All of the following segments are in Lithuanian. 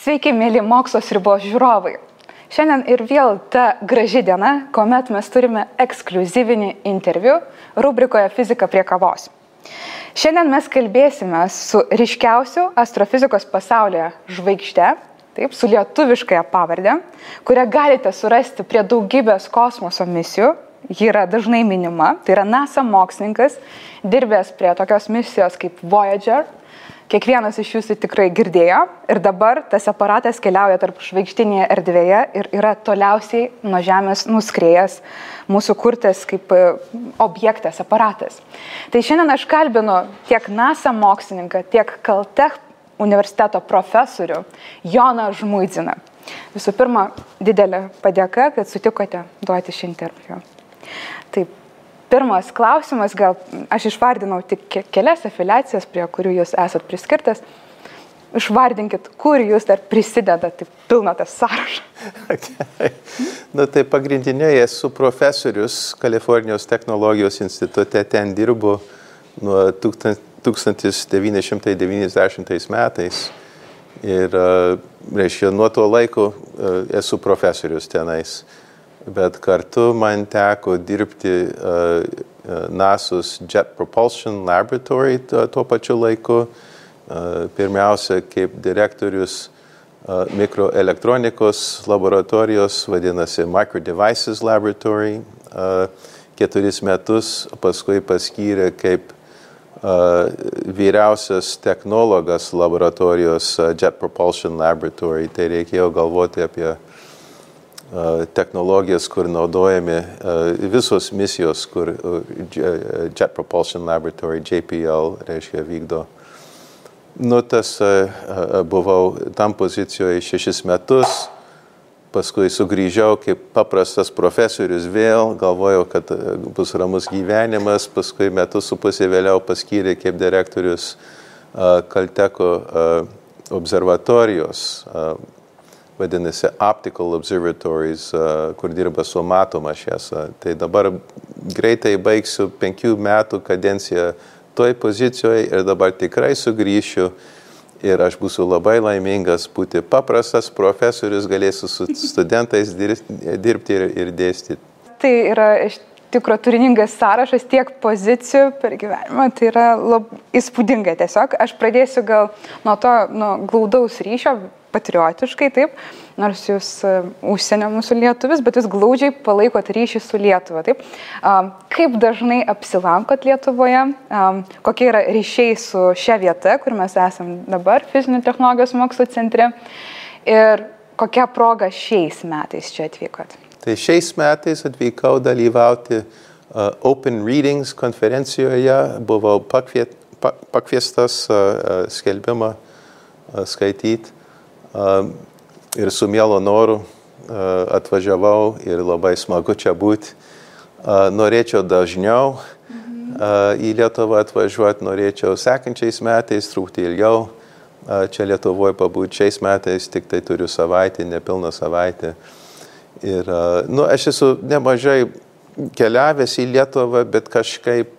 Sveiki, mėly Mokslo ribos žiūrovai. Šiandien ir vėl ta graži diena, kuomet mes turime ekskliuzyvinį interviu rubrikoje Fizika prie kavos. Šiandien mes kalbėsime su ryškiausiu astrofizikos pasaulyje žvaigžde, taip, su lietuviškąja pavarde, kurią galite surasti prie daugybės kosmoso misijų. Ji yra dažnai minima, tai yra NASA mokslininkas, dirbęs prie tokios misijos kaip Voyager. Kiekvienas iš jūsų tikrai girdėjo ir dabar tas aparatas keliauja tarp žvaigždinėje erdvėje ir yra toliausiai nuo Žemės nuskriejęs mūsų kurtas kaip objektas, aparatas. Tai šiandien aš kalbinu tiek NASA mokslininką, tiek Caltech universiteto profesorių Joną Žmuidziną. Visų pirma, didelė padėka, kad sutikote duoti šį interviu. Taip. Pirmas klausimas, gal aš išvardinau tik kelias afiliacijas, prie kurių jūs esat priskirtas. Išvardinkit, kur jūs dar prisidedat, tai pilna tas sąrašas. Okay. Tai pagrindiniai esu profesorius Kalifornijos technologijos institute, ten dirbu nuo 1990 metais. Ir, reiškia, nuo to laiko esu profesorius tenais. Bet kartu man teko dirbti NASA's Jet Propulsion Laboratory tuo pačiu laiku. Pirmiausia, kaip direktorius mikroelektronikos laboratorijos, vadinasi Micro Devices Laboratory, 4 metus, paskui paskyrė kaip vyriausias technologas laboratorijos Jet Propulsion Laboratory. Tai reikėjo galvoti apie technologijas, kur naudojami visos misijos, kur Jet Propulsion Laboratory, JPL, reiškia, vykdo. Buvau tam pozicijoje 6 metus, paskui sugrįžiau kaip paprastas profesorius vėl, galvojau, kad bus ramus gyvenimas, paskui 1.5 metų vėliau paskyrė kaip direktorius Caltecho observatorijos, vadinasi Optical Observatories, kur dirba su matoma šviesa. Tai dabar greitai baigsiu 5 metų kadenciją toj pozicijoje ir dabar tikrai sugrįšiu ir aš būsiu labai laimingas būti paprastas profesorius, galėsiu su studentais dirbti ir dėstyti. Tai yra iš tikro turiningas sąrašas tiek pozicijų per gyvenimą, tai yra įspūdinga tiesiog. Aš pradėsiu gal nuo glaudaus ryšio, patriotiškai, taip, nors jūs užsienio mūsų lietuvis, bet jūs glaudžiai palaikot ryšį su Lietuva, taip. Kaip dažnai apsilankot Lietuvoje, kokie yra ryšiai su šia vieta, kur mes esam dabar, Fizinių technologijos mokslo centre, ir kokia proga šiais metais čia atvykot? Tai šiais metais atvykau dalyvauti Open Readings konferencijoje, buvau pakviestas skelbimą skaityti. Ir su mielo noru atvažiavau ir labai smagu čia būti. Norėčiau dažniau į Lietuvą atvažiuoti, norėčiau sekančiais metais, truputį ilgiau čia Lietuvoje pabūti. Šiais metais tik tai turiu savaitę, nepilną savaitę. Ir aš esu nemažai keliavęs į Lietuvą, bet kažkaip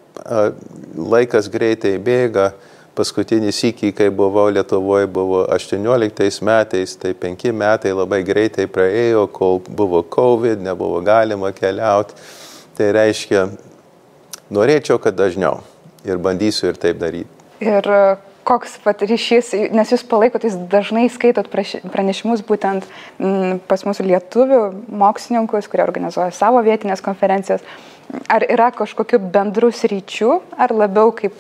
laikas greitai bėga. Paskutinį sykį, kai buvau Lietuvoje, buvo 18 metais, tai 5 metai labai greitai praėjo, kol buvo COVID, nebuvo galima keliauti. Tai reiškia, norėčiau, kad dažniau ir bandysiu ir taip daryti. Ir koks ryšys, nes jūs palaikot, jūs dažnai skaitot pranešimus būtent pas mūsų lietuvių mokslininkus, kurie organizuoja savo vietinės konferencijas. Ar yra kažkokių bendrų sričių, ar labiau kaip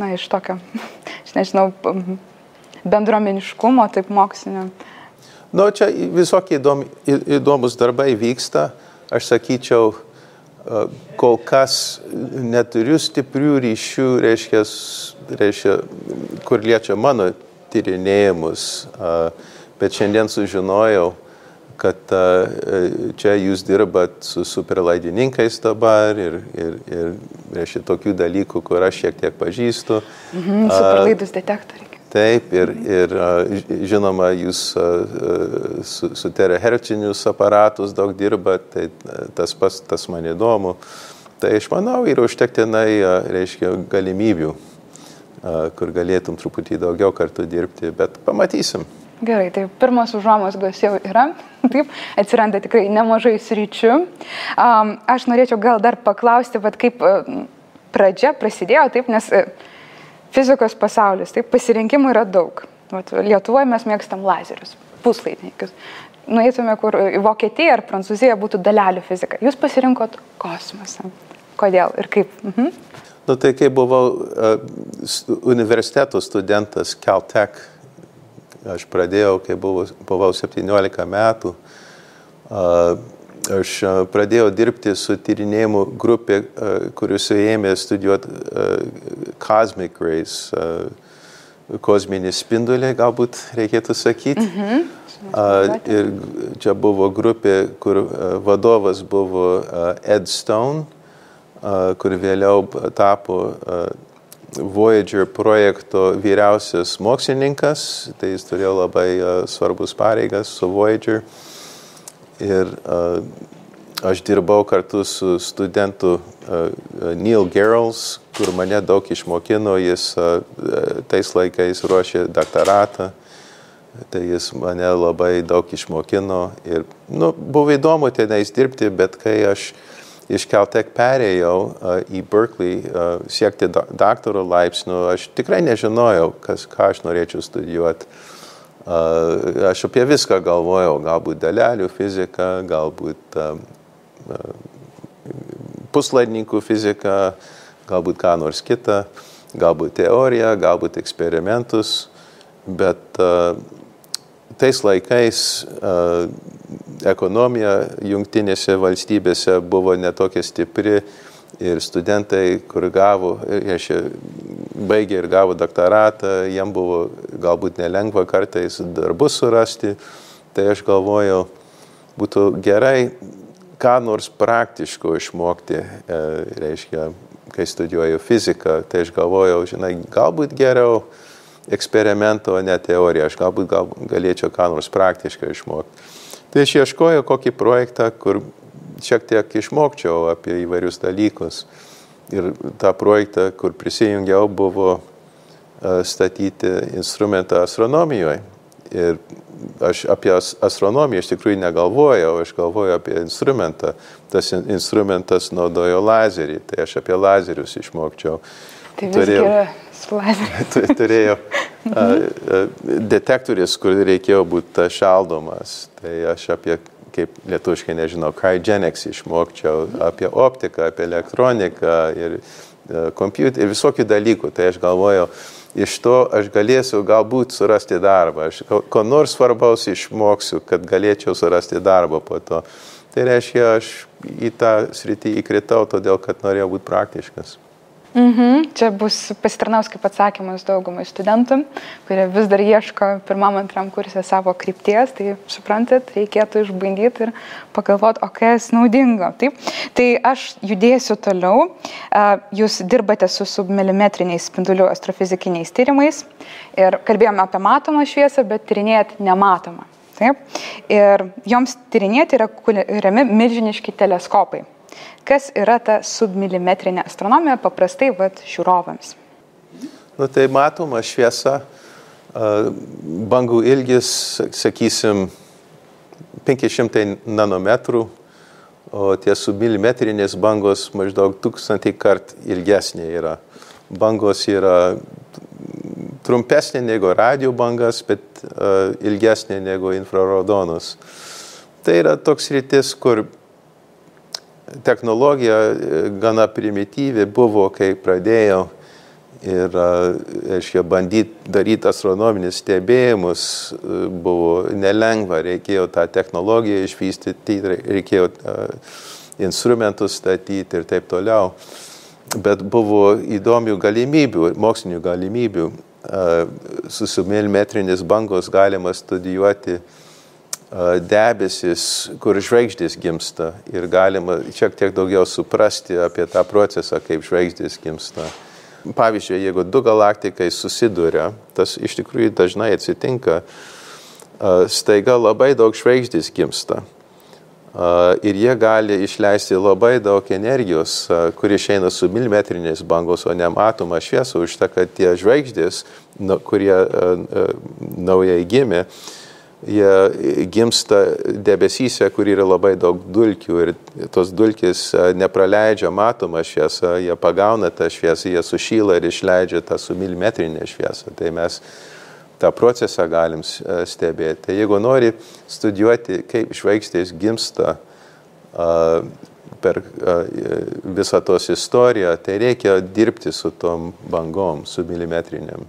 iš tokio, aš nežinau, bendruomeniškumo, taip mokslinio? Čia visokie įdomus darbai vyksta. Aš sakyčiau, kol kas neturiu stiprių ryšių, reiškia, kur liečia mano tyrinėjimus, bet šiandien sužinojau, kad čia jūs dirbat su superlaidininkais dabar ir reiškia tokių dalykų, kur aš šiek tiek pažįstu. Superlaidus detektoriai. Taip, ir žinoma, jūs su terahercinius aparatus daug dirbat, tai tas man įdomu. Tai aš manau, yra užtektinai, reiškia, galimybių, kur galėtum truputį daugiau kartų dirbti, bet pamatysim. Gerai, tai pirmas užuomazgos jau yra, taip, atsiranda tikrai nemažai sričių. Aš norėčiau gal dar paklausti, kaip pradžia prasidėjo, taip, nes fizikos pasaulis, taip, pasirinkimų yra daug. Lietuvoje mes mėgstam lazerius, puslaidininkius. Nueitume, kur į Vokietiją ar Prancūziją būtų dalelių fizika. Jūs pasirinkot kosmosą. Kodėl ir kaip? Nu, tai kai buvau universiteto studentas Caltech, aš pradėjau, kai buvau 17 metų, aš pradėjau dirbti su tyrinėjimų grupė, kuris ėmė studijuoti cosmic rays, kosminį spindulį, galbūt reikėtų sakyti. Ir čia buvo grupė, kur vadovas buvo Ed Stone, kur vėliau tapo Voyager projekto vyriausias mokslininkas, tai jis turėjo labai svarbus pareigas su Voyager. Ir aš dirbau kartu su studentu Neil Gehrels, kur mane daug išmokino, jis tais laikais ruošė doktoratą, tai jis mane labai daug išmokino. Ir buvo įdomu tenais dirbti, bet kai aš iš Caltech perėjau į Berkeley siekti daktaro laipsnių, aš tikrai nežinojau, ką aš norėčiau studijuoti. Aš apie viską galvojau, galbūt dalelių fizika, galbūt puslaidininkų fizika, galbūt ką nors kita, galbūt teorija, galbūt eksperimentus, bet tais laikais ekonomija jungtinėse valstybėse buvo netokia stipri ir studentai, kur baigė ir gavo doktoratą, jiem buvo galbūt nelengva kartais darbus surasti, tai aš galvojau, būtų gerai ką nors praktiško išmokti, reiškia, kai studijuoju fiziką, tai aš galvojau, galbūt geriau eksperimento, ne teoriją, aš galbūt galėčiau ką nors praktiškai išmokti. Tai aš ieškojau kokį projektą, kur šiek tiek išmokčiau apie įvairius dalykus. Ir tą projektą, kur prisijungiau, buvo statyti instrumentą astronomijoje. Ir aš apie astronomiją iš tikrųjų negalvojau, aš galvojau apie instrumentą. Tas instrumentas naudojo lazerį, tai aš apie lazerius išmokčiau. Tai visgi yra su lazeriu. Turėjau detektorius, kur reikėjo būti šaldomas. Tai aš apie, kaip lietuviškai nežinau, cryogenics išmokčiau, apie optiką, apie elektroniką ir kompiuterį ir visokių dalykų. Tai aš galvojau, iš to aš galėsiu galbūt surasti darbą. Aš ko nors svarbaus išmoksiu, kad galėčiau surasti darbą po to. Tai reiškia, aš į tą sritį įkritau, todėl kad norėjau būti praktiškas. Čia bus pasitarnaus kaip atsakymas daugumai studentų, kurie vis dar ieško pirmam, antram kurse savo krypties, tai suprantat, reikėtų išbandyti ir pagalvoti, o kas naudingo. Taip? Tai aš judėsiu toliau. Jūs dirbate su submilimetriniais spindulių astrofizikiniais tyrimais ir kalbėjome apie matomą šviesą, bet tyrinėjat nematomą. Taip? Ir joms tyrinėti yra kuriami milžiniški teleskopai. Kas yra ta submilimetrinė astronomija paprastai žiūrovams? Tai matoma šviesa, bangų ilgis, sakysim, 500 nanometrų, o tie submilimetrinės bangos maždaug 1000 kart ilgesnė yra. Bangos yra trumpesnė negu radio bangas, bet ilgesnė negu infraraudonos. Tai yra toks sritis, kur technologija gana primityvi buvo, kai pradėjau ir bandyti daryti astronominius stebėjimus buvo nelengva, reikėjo tą technologiją išvystyti, reikėjo instrumentus statyti ir taip toliau. Bet buvo įdomių galimybių, mokslinių galimybių. Su submilimetrinės bangos galima studijuoti debesis, kur žvaigždės gimsta ir galima šiek tiek daugiau suprasti apie tą procesą, kaip žvaigždės gimsta. Pavyzdžiui, jeigu du galaktikai susiduria, tas iš tikrųjų dažnai atsitinka, staiga labai daug žvaigždės gimsta. ir jie gali išleisti labai daug energijos, kuri išeina su milimetriniais bangos, o nematoma šviesa, už tą, kad tie žvaigždės, kurie naujai gimė, jie gimsta debesyse, kur yra labai daug dulkių ir tos dulkės nepraleidžia matomą šviesą, jie pagauna tą šviesą, jie sušyla ir išleidžia tą su milimetrinė šviesa. Tai mes tą procesą galim stebėti. Tai jeigu nori studijuoti, kaip žvaigždės gimsta per visą tos istoriją, tai reikia dirbti su tom bangom, su milimetriniam.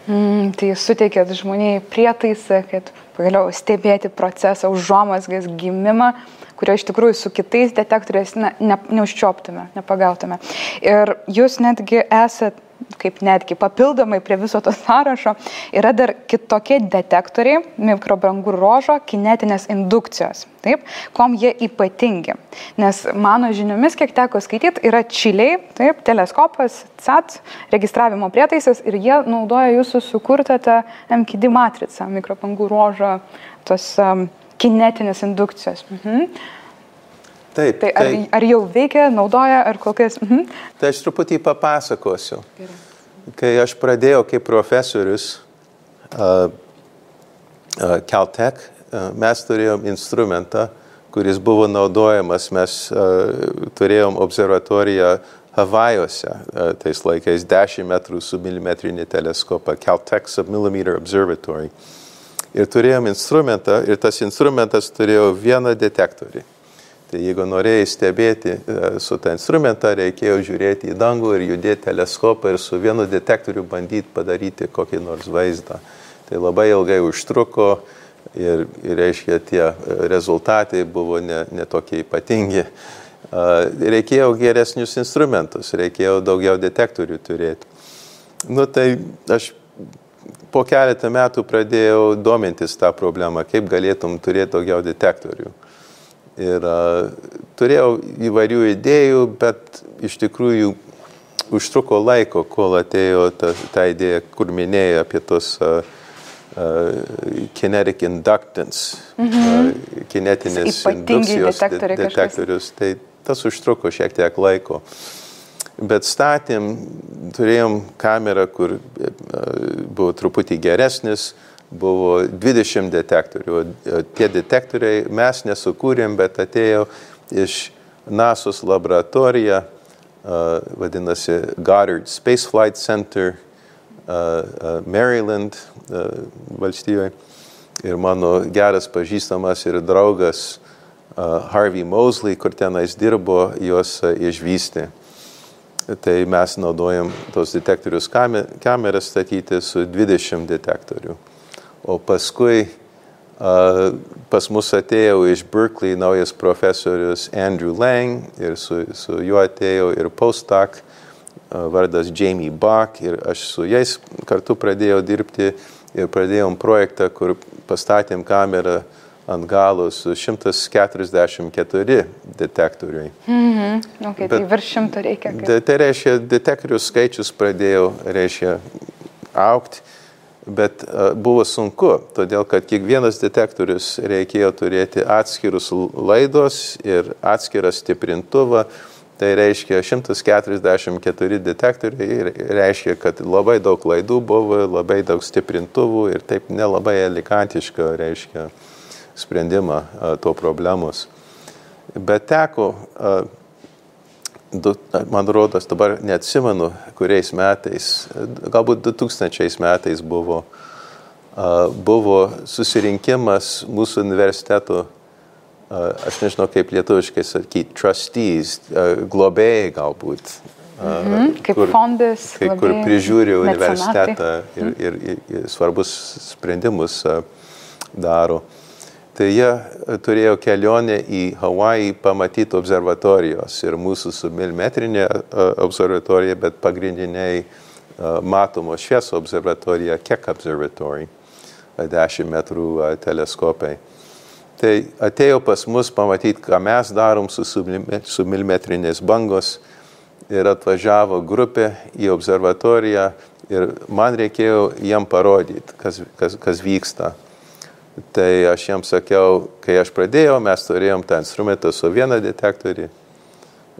Tai suteikėt žmoniai prietaisą, kad pagaliau stebėti procesą, užuomazgas gimimą, kurio iš tikrųjų su kitais detektoriais neužčioptume, nepagautume. Ir jūs netgi esat, kaip netgi papildomai prie viso to sąrašo, yra dar kitokie detektoriai, mikrobangų ruožo kinetinės indukcijos. Taip, kom jie ypatingi. Nes mano žiniomis, kiek teko skaityti, yra čiliai, taip, teleskopas, CAT, registravimo prietaisas ir jie naudoja jūsų sukurtą tą MKD matricą, mikrobangų ruožo tos kinetinės indukcijos. Taip, tai ar jau veikia, naudoja, ar kokias? Tai aš truputį papasakosiu. Kai aš pradėjau kaip profesorius Caltech, mes turėjom instrumentą, kuris buvo naudojamas, mes turėjom observatoriją Havajuose, tais laikais 10 metrų su milimetrinį teleskopą, Caltech Submillimeter Observatory. Ir turėjom instrumentą, ir tas instrumentas turėjo vieną detektorių. Tai jeigu norėjai stebėti su tą instrumentą, reikėjo žiūrėti į dangų ir judėti teleskopą ir su vienu detektoriu bandyti padaryti kokį nors vaizdą. Tai labai ilgai užtruko ir reiškia, tie rezultatai buvo ne tokie ypatingi. Reikėjo geresnius instrumentus, reikėjo daugiau detektorių turėti. Tai aš po keletą metų pradėjau domintis tą problemą, kaip galėtum turėti daugiau detektorių. Ir turėjau įvairių idėjų, bet iš tikrųjų užtruko laiko, kol atėjo ta idėja, kur minėjai apie tos kinetic inductance, kinetinės indukcijos detektorius. Tai tas užtruko šiek tiek laiko. Bet turėjom kamerą, kur buvo truputį geresnis, buvo 20 detektorių. Tie detektoriai mes nesukūrėm, bet atėjo iš NASA's laboratorija, vadinasi Goddard Space Flight Center, Maryland valstijoje. Ir mano geras pažįstamas ir draugas Harvey Moseley, kur tenais dirbo, juos išvystė. Tai mes naudojam tos detektorius kameras statyti su 20 detektorių. O paskui pas mus atėjo iš Berkeley naujas profesorius Andrew Lang ir su juo atėjo ir postdoc vardas Jamie Bach ir aš su jais kartu pradėjau dirbti ir pradėjom projektą, kur pastatėm kamerą ant galo su 144 detektoriai. Okay, tai virš 100 reikia. Tai reiškia, detektorių skaičius pradėjo augti. Bet buvo sunku, todėl kad kiekvienas detektorius reikėjo turėti atskirus laidos ir atskirą stiprintuvą. Tai reiškia 144 detektoriai, reiškia, kad labai daug laidų buvo, labai daug stiprintuvų ir taip nelabai elegantiška, reiškia, sprendimą to problemos. Bet teko, man rodos, dabar neatsimenu, kuriais metais, galbūt 2000 metais buvo susirinkimas mūsų universiteto, aš nežinau kaip lietuviškai sakyti, trustees, globėjai galbūt. Kaip fondas, kur prižiūri universitetą ir svarbus sprendimus daro. Tai jie turėjo kelionę į Hawajį pamatyti observatorijos ir mūsų su milimetrinė observatorija, bet pagrindiniai matomos šviesos observatorija, Keck Observatory, 10 metrų teleskopai. Tai atėjo pas mus pamatyti, ką mes darom su milimetrinės bangos ir atvažiavo grupė į observatoriją ir man reikėjo jiem parodyti, kas vyksta. Tai aš jiems sakiau, kai aš pradėjau, mes turėjom tą instrumentą su vieną detektorį,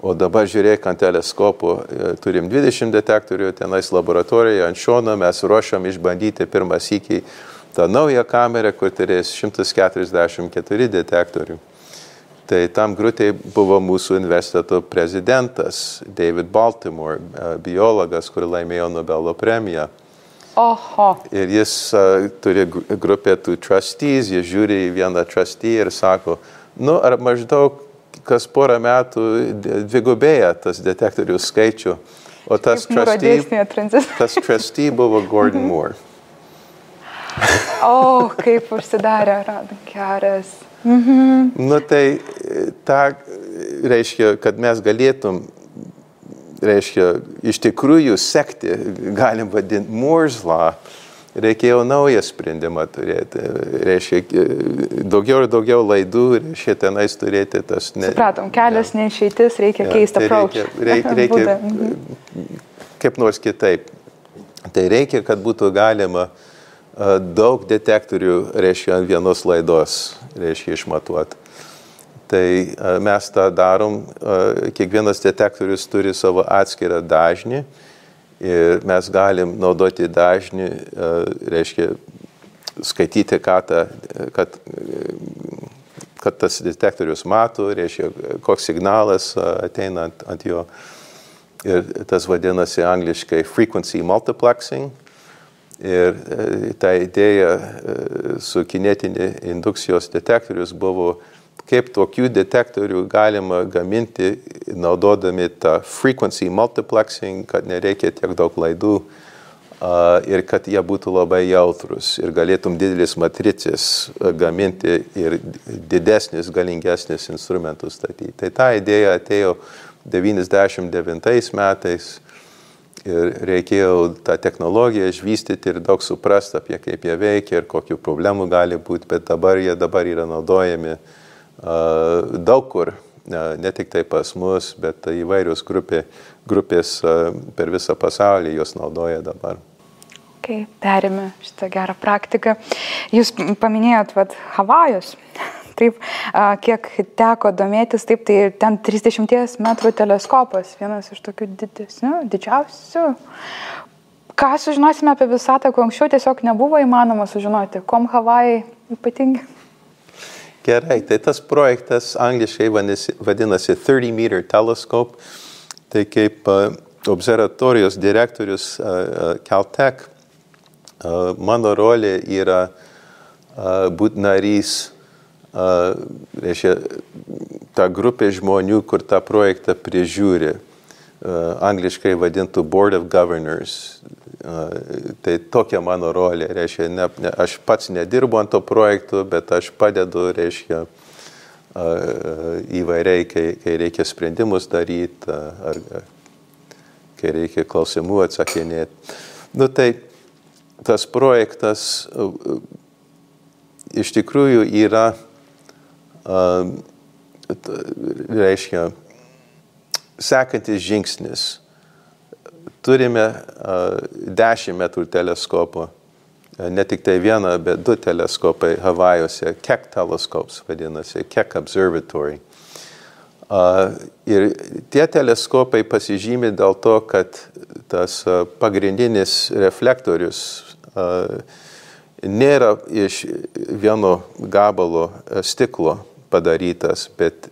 o dabar žiūrėk ant teleskopų, turim 20 detektorių, tenais laboratorijoje ant šono mes ruošiam išbandyti pirmą sykį tą naują kamerą, kur turės 144 detektorių. Tai tam grupėj buvo mūsų universiteto prezidentas David Baltimore, biologas, kur laimėjo Nobelio premiją. Oho. Ir jis turi grupę tų trustees, jis žiūri į vieną trustee ir sako, nu ar maždaug kas porą metų dvigubėja tas detektorių skaičių, o tas trustee buvo Gordon Moore. O, kaip užsidarė rankeres. Nu tai ta reiškia, kad mes galėtum, reiškia, iš tikrųjų sekti, galim vadinti Moore's Law, reikėjo naują sprendimą turėti, reiškia, daugiau ir daugiau laidų, reiškia, tenais turėti tas... Supratom, kelias neišeitis, reikia keisti approach. Reikia kaip nors kitaip. Tai reikia, kad būtų galima daug detektorių, reiškia, ant vienos laidos, reiškia, išmatuoti. Tai mes tą darom, kiekvienas detektorius turi savo atskirą dažnį ir mes galim naudoti dažnį, reiškia, skaityti, kad tas detektorius mato, reiškia, koks signalas ateina ant jo. Ir tas vadinasi angliškai frequency multiplexing. Ir ta idėja su kinetinė indukcijos detektorius buvo, kaip tokių detektorių galima gaminti, naudodami tą frequency multiplexing, kad nereikia tiek daug laidų ir kad jie būtų labai jautrus ir galėtum didelis matricės gaminti ir didesnis, galingesnis instrumentus statyti. Tai ta idėja atėjo 99 metais. Ir reikėjo tą technologiją išvystyti ir daug suprasti apie kaip jie veikia ir kokių problemų gali būti, bet dabar yra naudojami daug kur, ne tik tai pas mus, bet įvairios grupės per visą pasaulį jos naudoja dabar. Okay, perėmė šitą gerą praktiką. Jūs paminėjot Havajus. Taip, kiek teko domėtis, taip, tai ten 30 metrų teleskopas, vienas iš tokių didžiausių. Ką sužinosime apie visatą, ko anksčiau tiesiog nebuvo įmanoma sužinoti? Kuom Havajai ypatingi? Gerai, tai tas projektas angliškai vadinasi 30-meter telescope. Tai kaip observatorijos direktorius Caltech, mano rolė yra būti narys, reiškia, ta grupė žmonių, kur tą projektą prižiūri, angliškai vadintų Board of Governors. Tai tokia mano rolė, reiškia, aš pats nedirbu ant to projektų, bet aš padedu, reiškia, įvairiai, kai reikia sprendimus daryti, ar kai reikia klausimų atsakinėti. Nu, tai tas projektas iš tikrųjų yra reiškia, sekantis žingsnis. Turime 10 metrų teleskopų, ne tik tai vieną, bet 2 teleskopai Havajuose, Keck telescopes vadinasi, Keck Observatory. Ir tie teleskopai pasižymi dėl to, kad tas pagrindinis reflektorius nėra iš vieno gabalo stiklo padarytas, bet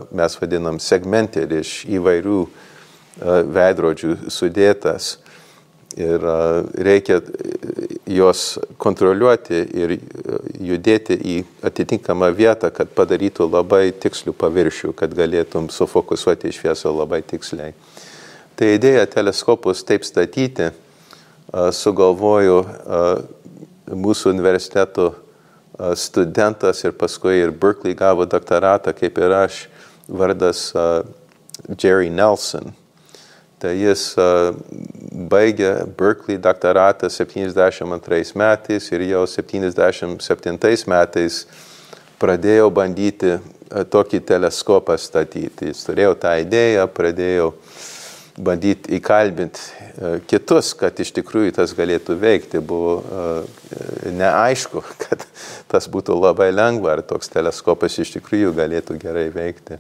mes vadinam segmented iš įvairių veidrodžių sudėtas. Ir reikia juos kontroliuoti ir judėti į atitinkamą vietą, kad padarytų labai tikslių paviršių, kad galėtum sufokusuoti šviesą labai tiksliai. Tai idėja teleskopus taip statyti sugalvojo mūsų universiteto studentas ir paskui ir Berkeley gavo doktoratą, kaip ir aš, vardas Jerry Nelson. Tai jis baigė Berkeley doktoratą 72 metais ir jau 77 metais pradėjo bandyti tokį teleskopą statyti. Jis turėjo tą idėją, pradėjo bandyti įkalbinti kitus, kad iš tikrųjų tas galėtų veikti. Buvo neaišku, kad tas būtų labai lengva, ar toks teleskopas iš tikrųjų galėtų gerai veikti.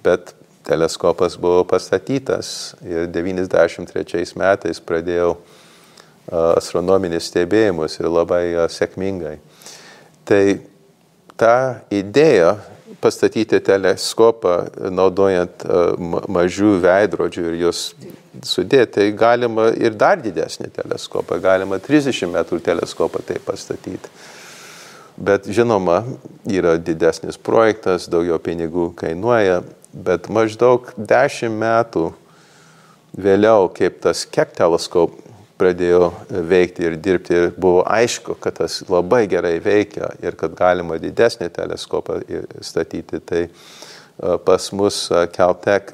Bet teleskopas buvo pastatytas ir 93 metais pradėjau astronominius stebėjimus ir labai sėkmingai. Tai ta idėja pastatyti teleskopą naudojant mažų veidrodžių ir juos sudėti, tai galima ir dar didesnį teleskopą, galima 30 metrų teleskopą tai pastatyti. Bet žinoma, yra didesnis projektas, daugiau pinigų kainuoja, bet maždaug 10 metų vėliau, kaip tas Keck teleskop pradėjo veikti ir dirbti, ir buvo aišku, kad tas labai gerai veikia ir kad galima didesnį teleskopą statyti. Tai pas mus Caltech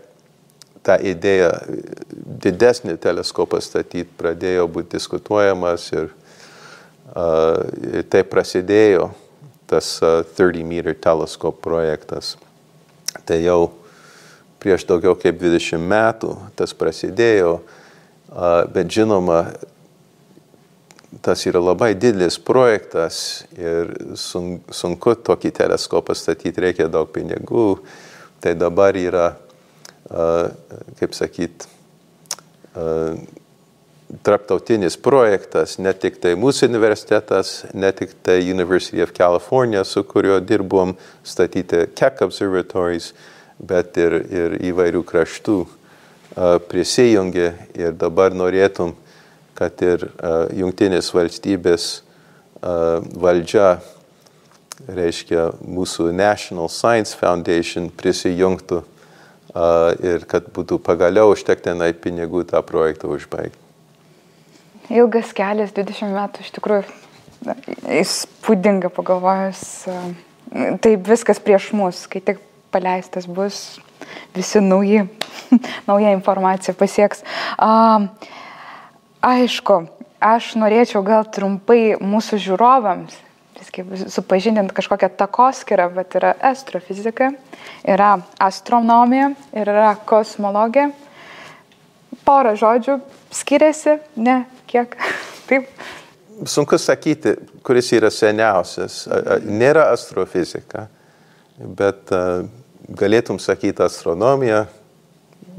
ta idėja didesnį teleskopą statyti pradėjo būti diskutuojamas ir tai prasidėjo tas 30-meter teleskop projektas. Tai jau prieš daugiau kaip 20 metų tas prasidėjo. Bet žinoma, tas yra labai didelis projektas ir sunku tokį teleskopą statyti, reikia daug pinigų. Tai dabar yra, kaip sakyt, tarptautinis projektas, ne tik tai mūsų universitetas, ne tik tai University of California, su kuriuo dirbom statyti Keck observatories, bet ir įvairių kraštų prisijungė ir dabar norėtum, kad ir Jungtinės valstybės valdžia, reiškia mūsų National Science Foundation prisijungtų ir kad būtų pagaliau užtektinai pinigų tą projektą užbaigti. Ilgas kelias, 20 metų, iš tikrųjų įspūdinga pagalvojus. Tai viskas prieš mus, kai tik paleistas bus, visi nauja informacija pasieks. Aišku, aš norėčiau gal trumpai mūsų žiūrovams supažindinti kažkokią takoskyrą, bet yra astrofizika, yra astronomija ir yra kosmologija. Porą žodžių skiriasi, ne kiek, taip. Sunku sakyti, kuris yra seniausias. Nėra astrofizika, bet galėtum sakyti astronomija,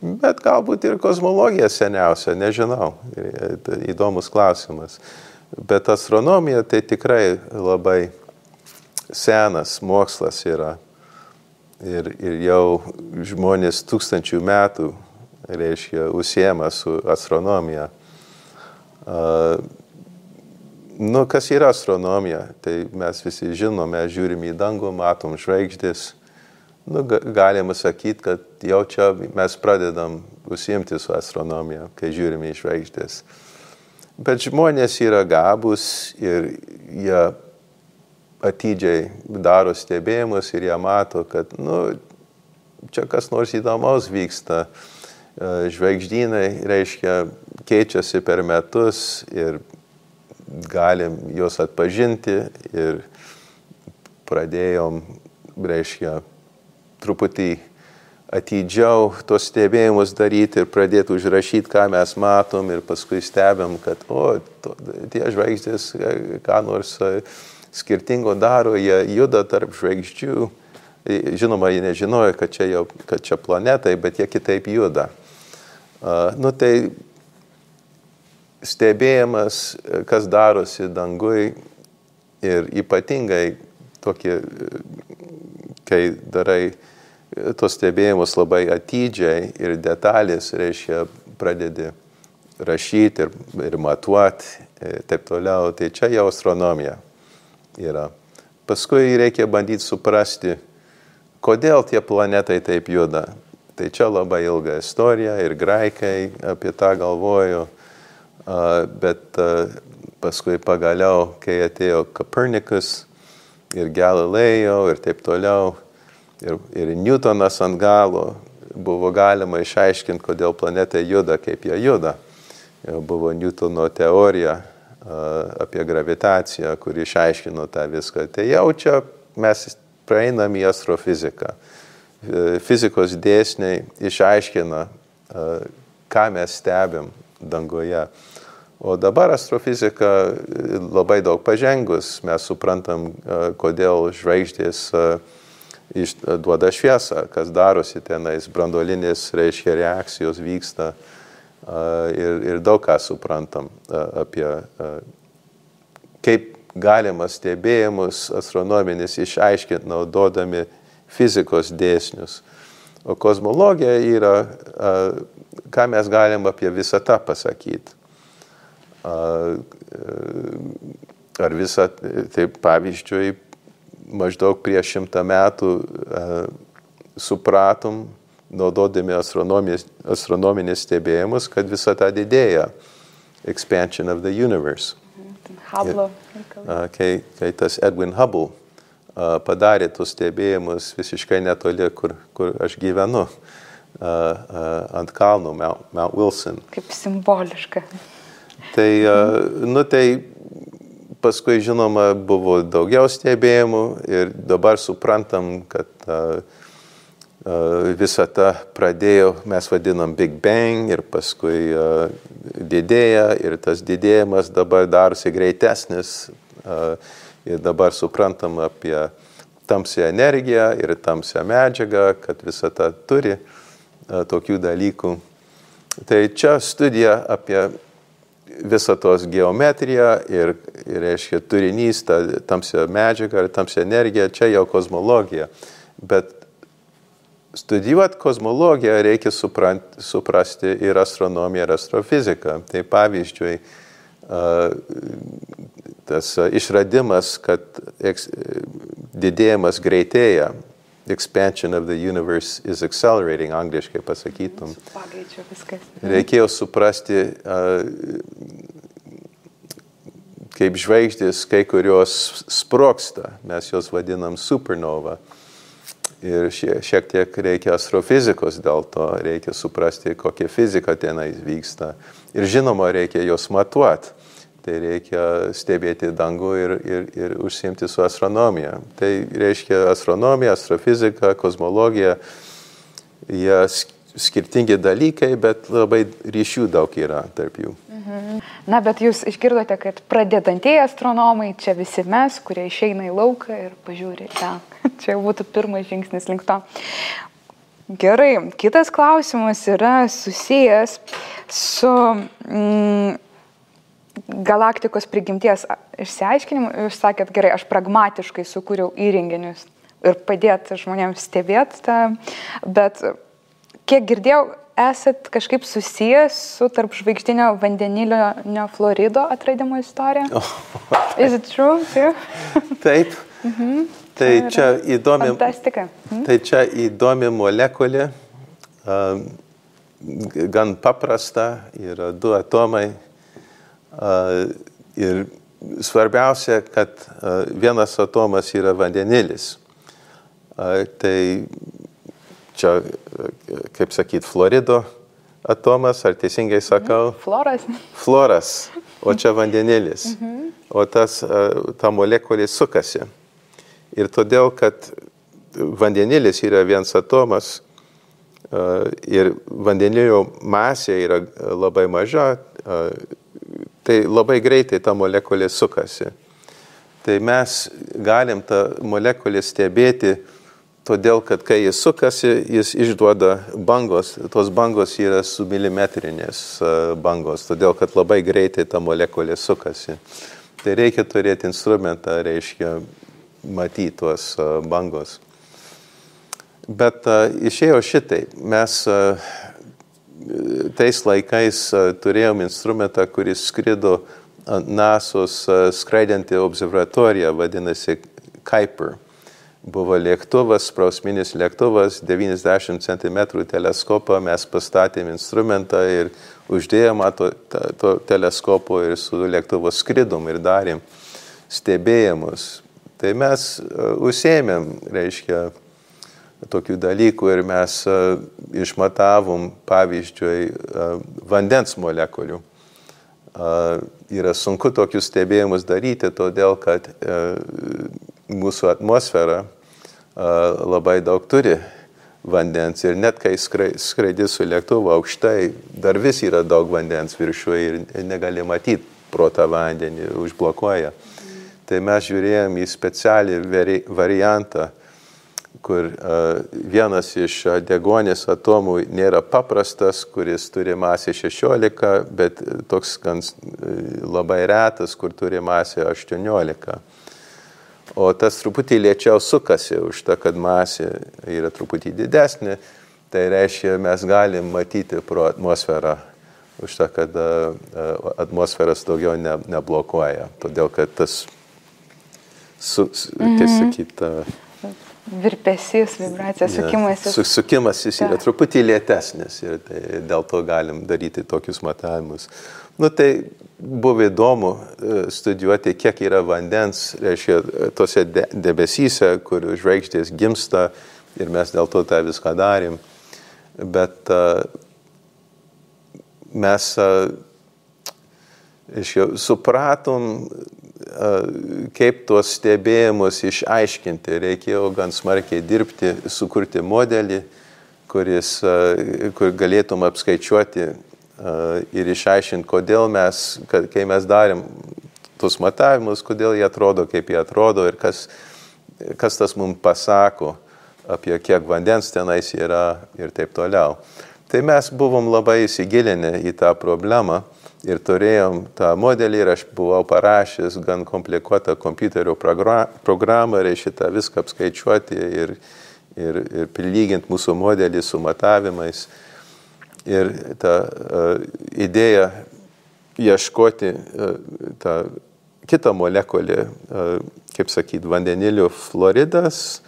bet galbūt ir kosmologija seniausia, nežinau. Įdomus klausimas. Bet astronomija tai tikrai labai senas mokslas yra. Ir jau žmonės 1000 metų, reiškia, užsiema su astronomija. Kas yra astronomija? Tai mes visi žinome, žiūrim į dangų, matom žvaigždės. Galima sakyti, kad jau čia mes pradedam užsiimti su astronomija, kai žiūrime į žvaigždės. Bet žmonės yra gabūs ir jie atidžiai daro stebėjimus ir jie mato, kad čia kas nors įdomaus vyksta. Žvaigždynai, reiškia, keičiasi per metus ir galim juos atpažinti ir pradėjom, reiškia, truputį atidžiau tos stebėjimus daryti ir pradėti užrašyti, ką mes matom ir paskui stebėm, kad tie žvaigždės ką nors skirtingo daro, jie juda tarp žvaigždžių. Žinoma, jie nežinojo, kad čia planetai, bet jie kitaip juda. Tai stebėjimas, kas darosi dangui ir ypatingai tokie, kai darai tos stebėjimus labai atidžiai ir detalės, reiškia, pradedi rašyti ir matuoti, taip toliau, tai čia jau astronomija yra. Paskui reikia bandyti suprasti, kodėl tie planetai taip juda. Tai čia labai ilga istorija ir graikai apie tą galvojo, bet paskui pagaliau, kai atėjo Kopernikus ir Galilėjo ir taip toliau, ir Newtonas ant galo, buvo galima išaiškinti, kodėl planetai juda, kaip jie juda. Buvo Newtono teorija apie gravitaciją, kuri išaiškino tą viską. Tai jau čia mes praeinam į astrofiziką. Fizikos dėsniai išaiškina, ką mes stebim dangoje. O dabar astrofizika labai daug pažengus, mes suprantam, kodėl žvaigždės duoda šviesą, kas darosi tenais, branduolinės, reiškia, reakcijos vyksta ir daug ką suprantam apie kaip galima stebėjimus astronominis išaiškinti naudodami fizikos dėsnius. O kozmologija yra, ką mes galim apie visatą pasakyti. Ar visą, tai pavyzdžiui, maždaug prieš 100 metų supratom, naudodami astronominės stebėjimus, kad visata didėja. Expansion of the universe. Hubble. Kai tas Edwin Hubble padarė tus stebėjimus visiškai netoli, kur aš gyvenu, ant kalno, Mount Wilson. Kaip simboliška. Tai paskui, žinoma, buvo daugiau stebėjimų ir dabar suprantam, kad visata pradėjo, mes vadinam Big Bang ir paskui didėja ir tas didėjimas dabar darosi greitesnis ir dabar suprantam apie tamsią energiją ir tamsią medžiagą, kad visata turi tokių dalykų. Tai čia studija apie visatos geometriją ir reiškia turinys, ta tamsia medžiaga ir tamsia energija, čia jau kozmologija. Bet studijuoti kozmologiją reikia suprasti ir astronomiją, ir astrofiziką. Tai pavyzdžiui, tas išradimas, kad didėjimas greitėja, expansion of the universe is accelerating, angliškai pasakytum. Pagreičio viskas. Reikėjo suprasti, kaip žvaigždės kai kurios sprogsta, mes jos vadinam supernova. Ir šiek tiek reikia astrofizikos, dėl to reikia suprasti, kokia fizika tenai vyksta. Ir žinoma, reikia jos matuoti. Tai reikia stebėti dangų ir užsiimti su astronomija. Tai reiškia astronomija, astrofizika, kozmologija, jie skirtingi dalykai, bet labai ryšių daug yra tarp jų. Na, bet jūs išgirdote, kad pradedantieji astronomai, čia visi mes, kurie išeina į lauką ir pažiūri ten. Čia būtų pirmas žingsnis link to. Gerai, kitas klausimas yra susijęs su galaktikos prigimties išsiaiškinimu. Jūs sakėt, gerai, aš pragmatiškai sukūriau įrenginius ir padėti žmonėms stebėti tą, bet kiek girdėjau, esat kažkaip susijęs su tarp žvaigždinio vandenilinio fluorido atradimo istorija? Is it true? Taip. Tai čia įdomi, fantastika. Tai čia įdomi molekulė, gan paprasta, yra 2 atomai. Ir svarbiausia, kad vienas atomas yra vandenilis. Tai čia, kaip sakyt, fluorido atomas, ar teisingai sakau? Fluoras. Fluoras, o čia vandenilis. O ta molekulė sukasi. Ir todėl, kad vandenilis yra vienas atomas ir vandenilio masė yra labai maža, tai labai greitai ta molekulė sukasi. Tai mes galim tą molekulę stebėti, todėl, kad kai jis sukasi, jis išduoda bangos. Tos bangos yra submilimetrinės bangos, todėl, kad labai greitai ta molekulė sukasi. Tai reikia turėti instrumentą, reiškia, matyti tuos bangos. Bet išėjo šitai. Mes tais laikais turėjom instrumentą, kuris skrido ant NASO's skraidanti observatorija, vadinasi Kuiper. Buvo lėktuvas, sprausminis lėktuvas, 90 cm teleskopą, mes pastatėm instrumentą ir uždėjom to teleskopo ir su lėktuvu skridom ir darėm stebėjimus. Tai mes užsiėmėm, reiškia, tokių dalykų ir mes išmatavom, pavyzdžiui, vandens molekulių. Yra sunku tokius stebėjimus daryti, todėl kad mūsų atmosfera labai daug turi vandens ir net kai skraidi su lėktuvu aukštai, dar vis yra daug vandens viršuje ir negali matyti pro tą vandenį, užblokuoja. Tai mes žiūrėjom į specialį variantą, kur vienas iš deguonies atomų nėra paprastas, kuris turi masę 16, bet toks gan labai retas, kur turi masę 18. O tas truputį lėčiau sukasi už tą, kad masė yra truputį didesnė, tai reiškia, mes galim matyti pro atmosferą, už tą, kad atmosferas daugiau neblokuoja. Todėl, kad tas, kaip sakyt, virpesys, vibracija, sukimasis. Sukimasis yra truputį lėtesnis ir tai dėl to galim daryti tokius matavimus. Tai buvo įdomu studijuoti, kiek yra vandens, reiškia, tose debesyse, kur žvaigždės gimsta ir mes dėl to tą viską darėm. Bet mes supratom, kaip tuos stebėjimus išaiškinti. Reikėjo gan smarkiai dirbti, sukurti modelį, kur galėtum apskaičiuoti ir išaiškinti, kodėl mes, kai mes darėm tuos matavimus, kodėl jie atrodo, kaip jie atrodo ir kas tas mums pasako apie kiek vandens tenais yra ir taip toliau. Tai mes buvom labai įsigilinę į tą problemą. Ir turėjom tą modelį ir aš buvau parašęs gan komplikuotą kompiuterio programą, reiškia tą viską apskaičiuoti ir prilyginti mūsų modelį su matavimais. Ir ta idėja ieškoti tą kitą molekulę, kaip sakyt, vandenilio fluoridas,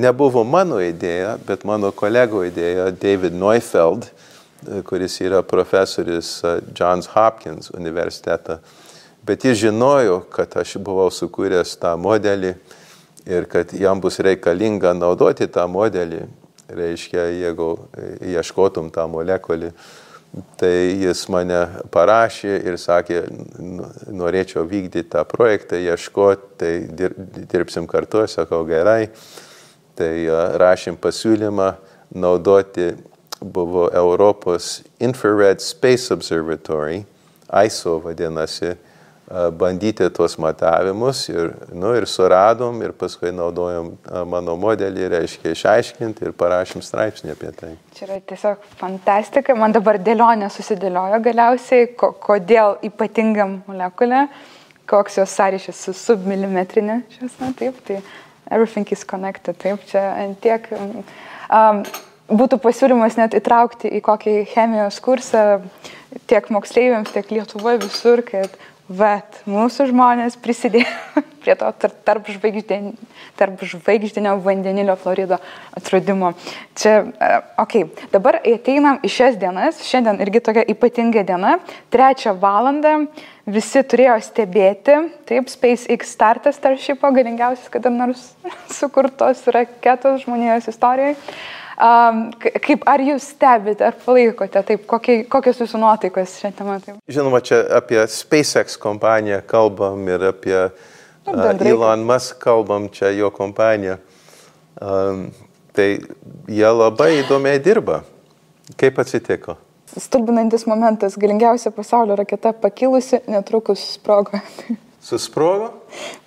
nebuvo mano idėja, bet mano kolego idėja, David Neufeld, kuris yra profesorius Johns Hopkins universitetą. Bet jis žinojo, kad aš buvau sukūręs tą modelį ir kad jam bus reikalinga naudoti tą modelį, reiškia, jeigu ieškotum tą molekulį. Tai jis mane parašė ir sakė, norėčiau vykdyti tą projektą, ieškoti, tai dirbsim kartu, sakau gerai. Tai rašėm pasiūlymą naudoti buvo Europos Infrared Space Observatory, ISO vadinasi, bandyti tuos matavimus ir suradom ir paskui naudojom mano modelį, reiškia išaiškinti ir parašym straipsnį apie tai. Čia yra tiesiog fantastika. Man dabar dėlionė susidėliojo galiausiai, kodėl ypatinga molekulė, koks jos sąryšis su submilimetrinė šviesa, taip, tai everything is connected, taip, čia tiek... Būtų pasiūlymas net įtraukti į kokį chemijos kursą tiek moksleiviams, tiek Lietuvoje visur, kad mūsų žmonės prisidėjo prie to tarp žvaigždinio vandenilio fluorido atradimo. Čia, dabar ateinam į šias dienas, šiandien irgi tokia ypatinga diena, 3 valandą, visi turėjo stebėti, taip, SpaceX startas Starshipo, galingiausias kada nors sukurtos raketos žmonijos istorijoje. Ar jūs stebite, ar palaikote, taip, kokios jūsų nuotaikos šią temą? Taip? Žinoma, čia apie SpaceX kompaniją kalbam ir apie Elon Musk kalbam, čia jo kompanija. Tai jie labai įdomiai dirba. Kaip atsitiko? Stulbinantis momentas, galingiausia pasaulio raketa pakilusi, netrukus sprogo. Susprogo?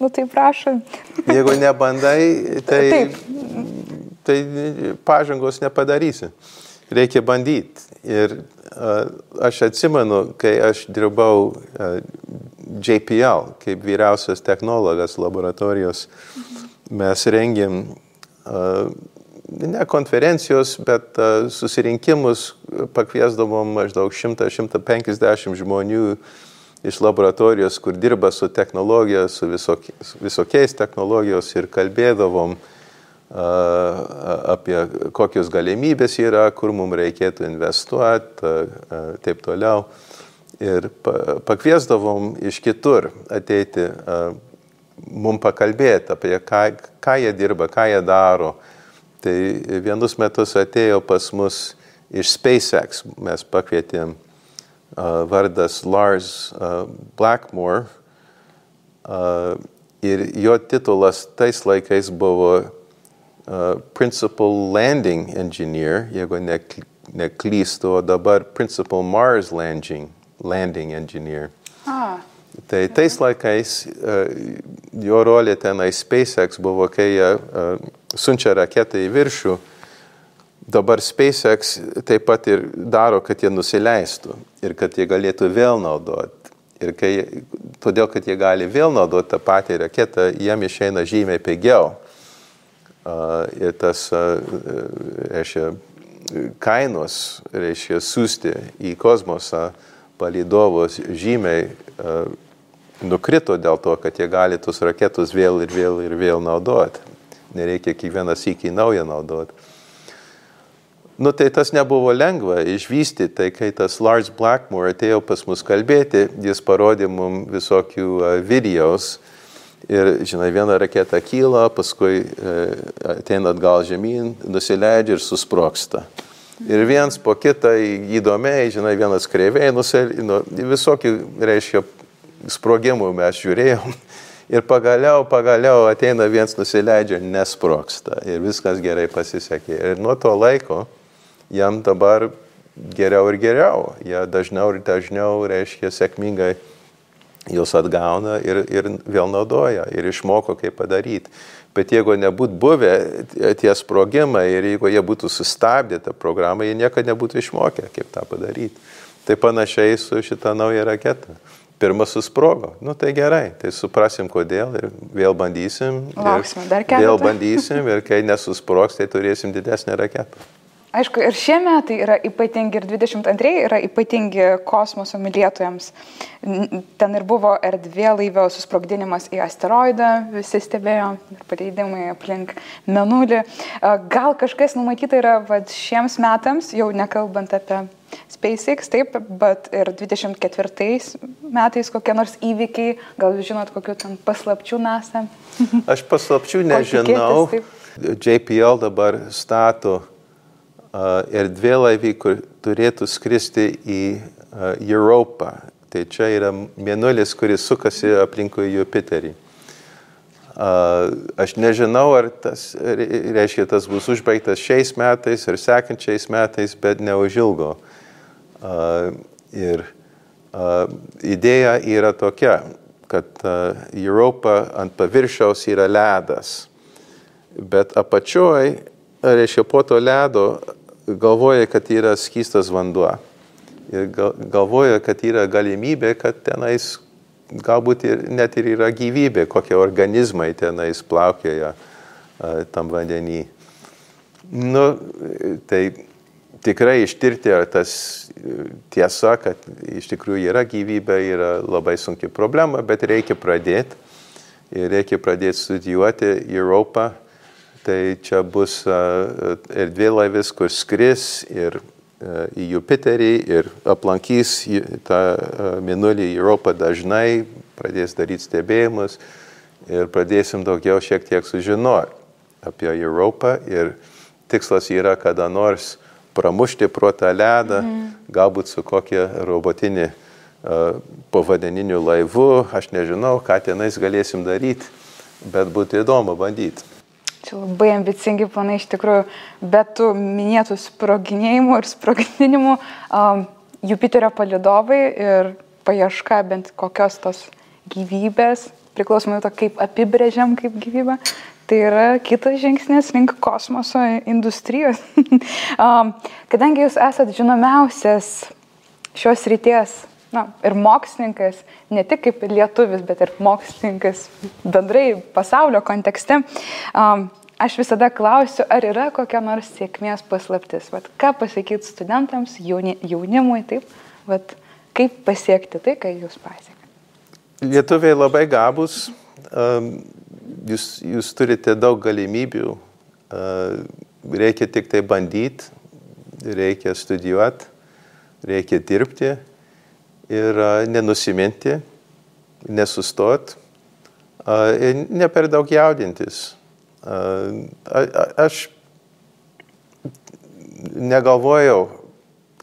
Tai prašom. Jeigu nebandai, tai pažangos nepadarysi. Reikia bandyti. Ir aš atsimenu, kai aš dirbau JPL, kaip vyriausias technologas laboratorijos, mes rengėm ne konferencijos, bet susirinkimus, pakviesdavom maždaug 100-150 žmonių iš laboratorijos, kur dirba su technologija, su visokiais technologijos ir kalbėdavom apie kokios galimybės yra, kur mums reikėtų investuoti, taip toliau. Ir pakviesdavom iš kitur ateiti, mums pakalbėti apie ką jie dirba, ką jie daro. Tai vienus metus atėjo pas mus iš SpaceX, mes pakvietėm vardas Lars Blackmore ir jo titulas tais laikais buvo Principal Landing Engineer, jeigu neklystu, o dabar Principal Mars Landing Engineer. Tai tais laikais jo rolė tenai SpaceX buvo, kai jie siunčia raketą į viršų. Dabar SpaceX taip pat ir daro, kad jie nusileistų ir kad jie galėtų vėl naudoti. Ir todėl, kad jie gali vėl naudoti tą patį raketą, jiem išeina žymiai pigiau. Ir tas, reiškia, kainos, reiškia, siųsti į kosmosą palydovus žymiai nukrito dėl to, kad jie gali tus raketus vėl ir vėl naudoti. Nereikia kiekvieną sykį naują naudoti. Nu, tai tas nebuvo lengva išvystyti, tai kai tas Lars Blackmore atėjo pas mus kalbėti, jis parodė mums visokių videos ir, žinai, viena raketa kyla, paskui ateina atgal žemyn, nusileidžia ir susprogsta. Ir viens po kitą įdomiai, žinai, vienas kreiviai, visokių, reiškia, sprogimų mes žiūrėjom. Ir pagaliau ateina viens nusileidžia, nesprogsta. Ir viskas gerai pasisekė. Ir nuo to laiko jam dabar geriau ir geriau. Jie dažniau ir dažniau, reiškia, sėkmingai juos atgauna ir vėl naudoja. Ir išmoko, kaip padaryti. Bet jeigu nebūtų buvę tie sprogimai ir jeigu jie būtų sustabdę tą programą, jie niekada nebūtų išmokę, kaip tą padaryti. Tai panašiai su šitą naują raketą. Pirmas susprogo. Nu tai gerai, tai suprasim kodėl ir vėl bandysim. Lauksime dar keletą. Vėl bandysim ir kai nesusprogs, tai turėsim didesnę raketą. Aišku, ir šie metai yra ypatingi, ir 22 yra ypatingi kosmoso mylėtojams. Ten ir buvo erdvėlaivio susprogdinimas į asteroidą, visi stebėjo, ir paleidimai aplink Mėnulį. Gal kažkas numatyta yra šiems metams, jau nekalbant apie SpaceX, taip, bet ir 24 metais kokie nors įvykiai, gal jūs žinot, kokių ten paslapčių NASA? Aš paslapčių nežinau. JPL dabar stato erdvėlaivį, kur turėtų skristi į Europą. Tai čia yra Mėnulis, kuris sukasi aplinkui Jupiterį. Aš nežinau, ar tas, reiškia, tas bus užbaigtas šiais metais ir sekančiais metais, bet neužilgo. Ir idėja yra tokia, kad Europa ant paviršiaus yra ledas, bet apačioj, reiškia, po to ledo galvoja, kad yra skystas vanduo. Ir galvoja, kad yra galimybė, kad tenais galbūt net ir yra gyvybė, kokie organizmai tenais plaukioja tam vandenį. Nu, tai tikrai ištirti, ar tas tiesa, kad iš tikrųjų yra gyvybė, yra labai sunki problema, bet reikia pradėti. Ir reikia pradėti studijuoti Europą. Tai čia bus erdvėlaivis, kur skris ir į Jupiterį ir aplankys tą Mėnulį į Europą dažnai, pradės daryti stebėjimus ir pradėsim daugiau šiek tiek sužinoti apie Europą. Ir tikslas yra kada nors pramušti pro tą ledą, galbūt su kokia robotinė povandeniniu laivu. Aš nežinau, ką tenais galėsim daryti, bet būtų įdomu bandyti. Čia labai ambicingi planai iš tikrųjų, bet tų minėtų sproginėjimų ir sprogdinimų Jupiterio palydovai ir paieška bent kokios tos gyvybės, priklausomai to, kaip apibrėžiam kaip gyvybę, tai yra kitas žingsnis link kosmoso industrijos. Kadangi jūs esat žinomiausias šios ryties, ir mokslininkas, ne tik kaip lietuvis, bet ir mokslininkas bendrai pasaulio kontekste, aš visada klausiu, ar yra kokia nors sėkmės paslaptis. Ką pasakyti studentams, jaunimui, taip, kaip pasiekti tai, ką jūs pasiekėte? Lietuviai labai gabūs, jūs turite daug galimybių, reikia tik tai bandyti, reikia studijuoti, reikia dirbti. Ir nenusiminti, nesustoti, ne per daug jaudintis. Aš negalvojau,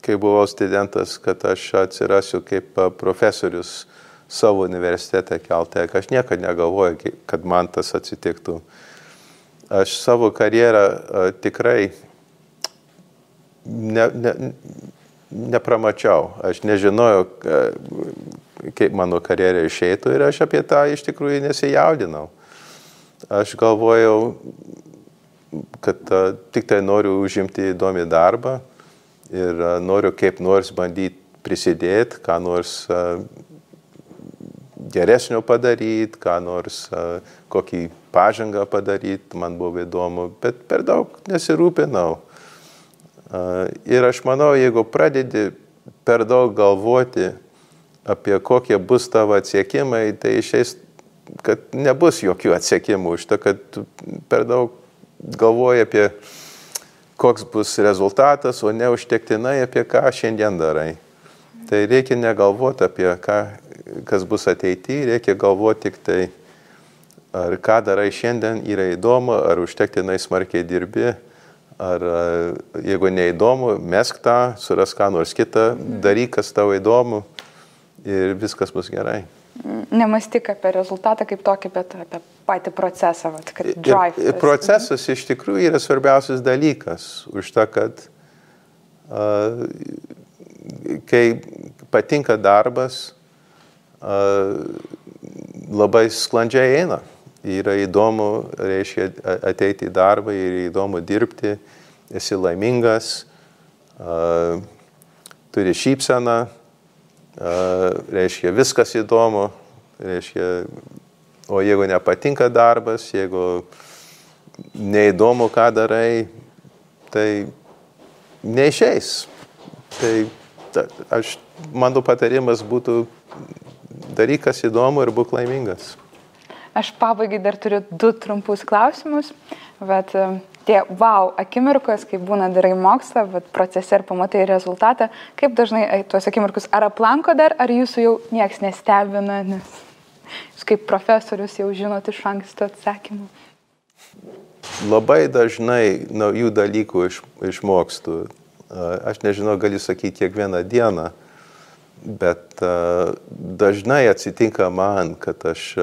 kai buvau studentas, kad aš atsirasiu kaip profesorius savo universitete Caltech. Aš niekada negalvojau, kad man tas atsitiktų. Aš savo karjerą tikrai nepramačiau. Aš nežinojau, kaip mano karjera išeitų ir aš apie tą iš tikrųjų nesijaudinau. Aš galvojau, kad tik tai noriu užimti įdomį darbą ir noriu kaip nors bandyti prisidėti, ką nors geresnio padaryti, ką nors kokį pažangą padaryti, man buvo įdomu, bet per daug nesirūpinau. Ir aš manau, jeigu pradedi per daug galvoti apie kokie bus tavo atsiekimai, tai išeis, kad nebus jokių atsiekimų už to, kad tu per daug galvoji apie koks bus rezultatas, o ne užtektinai apie ką šiandien darai. Tai reikia negalvoti apie kas bus ateityje, reikia galvoti tik tai, ar ką darai šiandien yra įdomu, ar užtektinai smarkiai dirbi, ar jeigu neįdomu, mesk tą, surask ką nors kitą, daryk, kas tau įdomu ir viskas bus gerai. Nemąstyk apie rezultatą kaip tokį, bet apie patį procesą, kad drive. Ir procesas iš tikrųjų yra svarbiausias dalykas, už tą, kad kai patinka darbas, labai sklandžiai eina. Yra įdomu, reiškia, ateiti į darbą, yra įdomu dirbti, esi laimingas, turi šypseną, reiškia, viskas įdomu, reiškia, o jeigu nepatinka darbas, jeigu neįdomu, ką darai, tai neišeis. Tai mano patarimas būtų daryk, kas įdomu ir būk laimingas. Aš pabaigai dar turiu 2 trumpus klausimus, bet tie wow akimirkos, kai būna darai mokslą, bet procese ir pamatai rezultatą, kaip dažnai tuos akimirkus ar aplanko dar, ar jūsų jau nieks nestebina, nes jūs kaip profesorius jau žinot iš anksto atsakymų? Labai dažnai naujų dalykų išmokstu. Aš nežinau, galiu sakyti kiekvieną dieną, bet dažnai atsitinka man, kad aš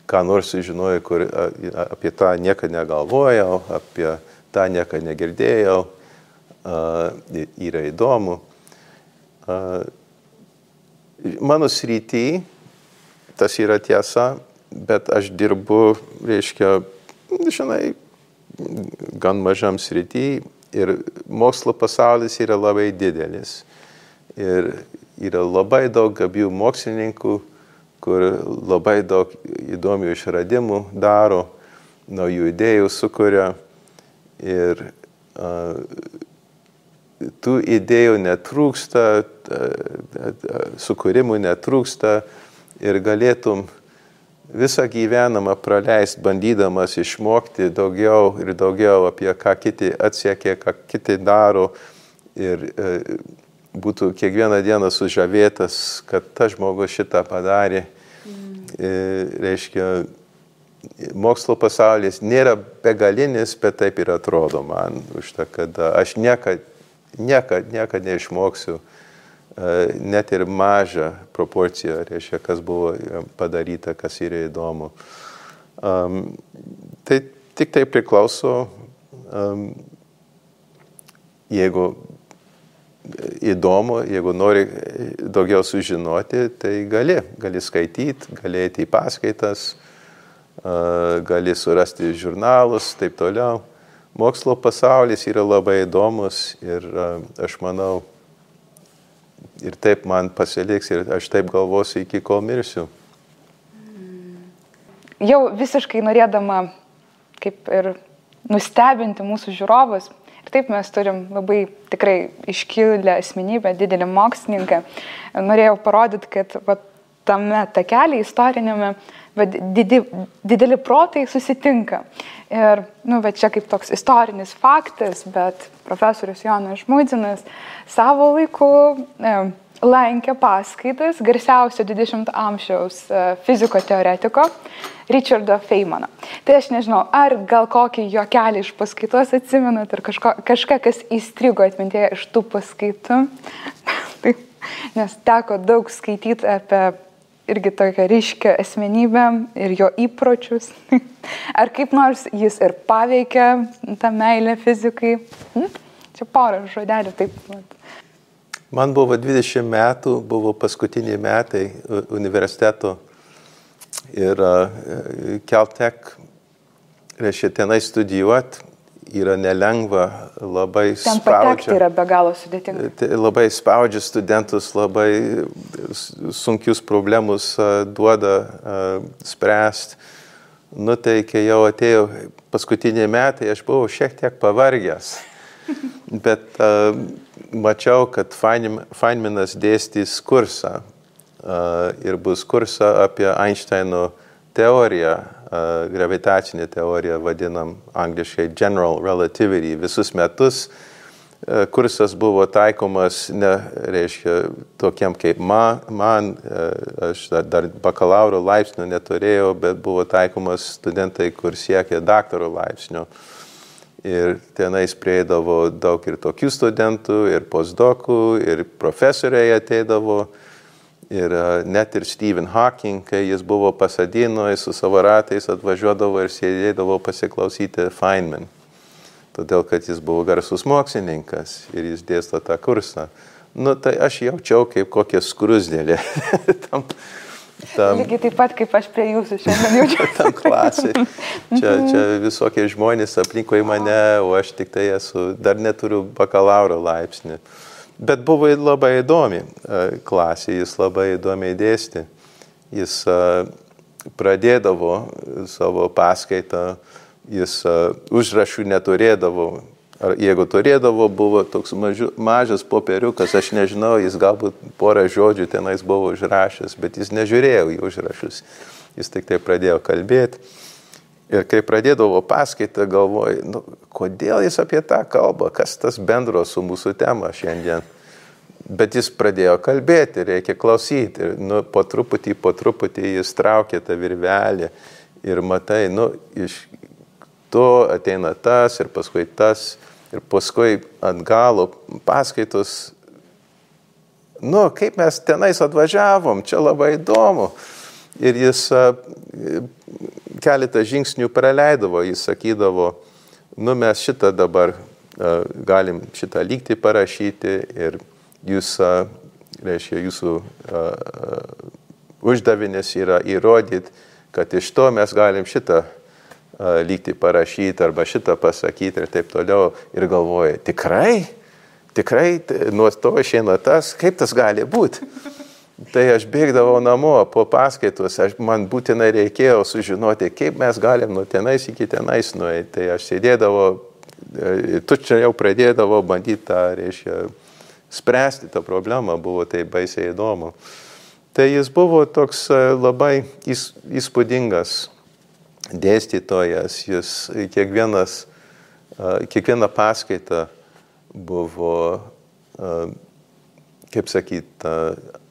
ką nors sužinojau, kur apie tą niekada negalvojau, apie tą niekada negirdėjau, yra įdomu. Mano srity tas yra tiesa, bet aš dirbu, reiškia, žinai, gan mažam srity ir mokslo pasaulis yra labai didelis. Ir yra labai daug gabių mokslininkų, kur labai daug įdomių išradimų daro, naujų idėjų sukuria ir tų idėjų netrūksta, sukūrimų netrūksta ir galėtum visą gyvenimą praleisti, bandydamas išmokti daugiau ir daugiau apie ką kiti atsiekė, ką kiti daro ir būtų kiekvieną dieną sužavėtas, kad tas žmogus šitą padarė. Reiškia, mokslo pasaulis nėra begalinis, bet taip ir atrodo man, už tą, kad aš niekad neišmoksiu net ir mažą proporciją, reiškia, kas buvo padaryta, kas yra įdomu. Tai tik tai priklauso, jeigu įdomu, jeigu nori daugiau sužinoti, tai gali skaityti, gali eiti į paskaitas, gali surasti žurnalus, taip toliau. Mokslo pasaulis yra labai įdomus ir aš manau, ir taip man pasiliks ir aš taip galvosiu iki kol mirsiu. Jau visiškai norėdama kaip ir nustebinti mūsų žiūrovus, ir taip mes turim labai tikrai iškilę asmenybę, didelį mokslininką. Norėjau parodyti, kad tame takelį istorinėme dideli protai susitinka. Ir čia kaip toks istorinis faktas, bet profesorius Jonas Žmuidzinas savo laiku lankė paskaitas garsiausio 20 amžiaus fiziko teoretiko Richardo Feynmano. Tai aš nežinau, ar gal kokį juokelį iš paskaitos atsimenat, ar kažką, kas įstrigo atmintėje iš tų paskaitų. Nes teko daug skaityti apie irgi tokią ryškę asmenybę ir jo įpročius. Ar kaip nors jis ir paveikia tą meilę fizikai? Čia porą žodelių taip. Man buvo 20 metų, buvo paskutiniai metai universiteto ir Caltech, reiškia, tenai studijuoti yra nelengva, labai ten patekti yra be galo sudėtinga. Labai spaudžia studentus, labai sunkius problemus duoda spręsti. Nu tai, kai jau atėjo paskutiniai metai, aš buvau šiek tiek pavargęs. Bet mačiau, kad Feynmanas dėstys kursą ir bus kursą apie Einsteino teoriją, gravitacinę teoriją, vadinam angliškai General Relativity. Visus metus kursas buvo taikomas, reiškia, tokiem kaip man, aš dar bakalauro laipsnio neturėjau, bet buvo taikomas studentai, kur siekė daktaro laipsnio. Ir tenais prieidavo daug ir tokių studentų, ir postdokų, ir profesoriai ateidavo. Ir net ir Stephen Hawking, kai jis buvo Pasadinoje, su savo ratais atvažiuodavo ir sėdėdavo pasiklausyti Feynman. Todėl, kad jis buvo garsus mokslininkas ir jis dėsto tą kursą. Nu, tai aš jaučiau kaip kokia skrusdėlė. Lygiai taip pat, kaip aš prie jūsų šiandien jaučiu. Tam klasai. Čia visokie žmonės aplinkui mane, o aš tik tai dar neturiu bakalauro laipsnį. Bet buvo labai įdomi klasė, jis labai įdomiai dėstė. Jis pradėdavo savo paskaitą, jis užrašų neturėdavo. Ar jeigu turėdavo, buvo toks mažas popieriukas, aš nežinau, jis galbūt porą žodžių tenais buvo užrašęs, bet jis nežiūrėjo į užrašus. Jis tik tai pradėjo kalbėti. Ir kai pradėdavo paskaitą, galvoju, nu, kodėl jis apie tą kalbą, kas tas bendro su mūsų tema šiandien. Bet jis pradėjo kalbėti, reikia klausyti. Ir, nu, po truputį jis traukė tą virvelį ir matai, nu, iš to ateina tas ir paskui tas. Ir paskui ant galo paskaitos, nu, kaip mes tenais atvažiavom, čia labai įdomu. Ir jis keletą žingsnių praleidavo, jis sakydavo, nu, mes šitą dabar galim šitą lygtį parašyti ir jūs, reiškia, jūsų uždavinys yra įrodyti, kad iš to mes galim šitą lygtį parašyti arba šitą pasakyti ir taip toliau. Ir galvoja, tikrai, nuo to išeina tas, kaip tas gali būti. Tai aš bėgdavau namo po paskaitos, man būtinai reikėjo sužinoti, kaip mes galim nuo tenais iki tenais nueiti. Tai aš sėdėdavau, tučia jau pradėdavau bandyti tą, reiškia, spręsti tą problemą, buvo tai baisiai įdomu. Tai jis buvo toks labai įspūdingas dėstytojas, jis kiekviena paskaita buvo, kaip sakyt,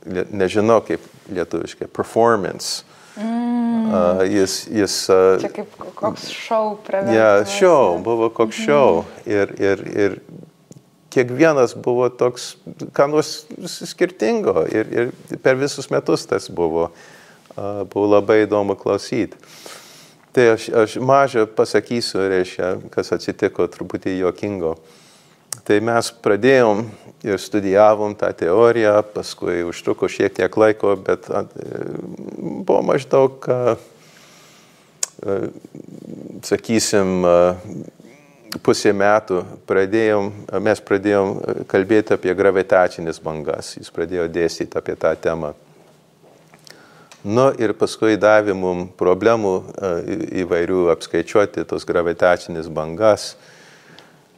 nežinau kaip lietuviškai, performance. Čia kaip koks šou pravedamas. Ja, šou, buvo koks šou. Ir kiekvienas buvo toks, ką nors skirtingo. Ir per visus metus tas buvo. Buvo labai įdomu klausyti. Tai aš mažą pasakysiu, reiškia, kas atsitiko truputį juokingo. Tai mes pradėjom ir studijavom tą teoriją, paskui užtruko šiek tiek laiko, bet buvo maždaug, sakysim, pusė metų mes pradėjom kalbėti apie gravitacinės bangas. Jis pradėjo dėstyti apie tą temą. Nu ir paskui davė mums problemų įvairių apskaičiuoti tos gravitacinės bangas.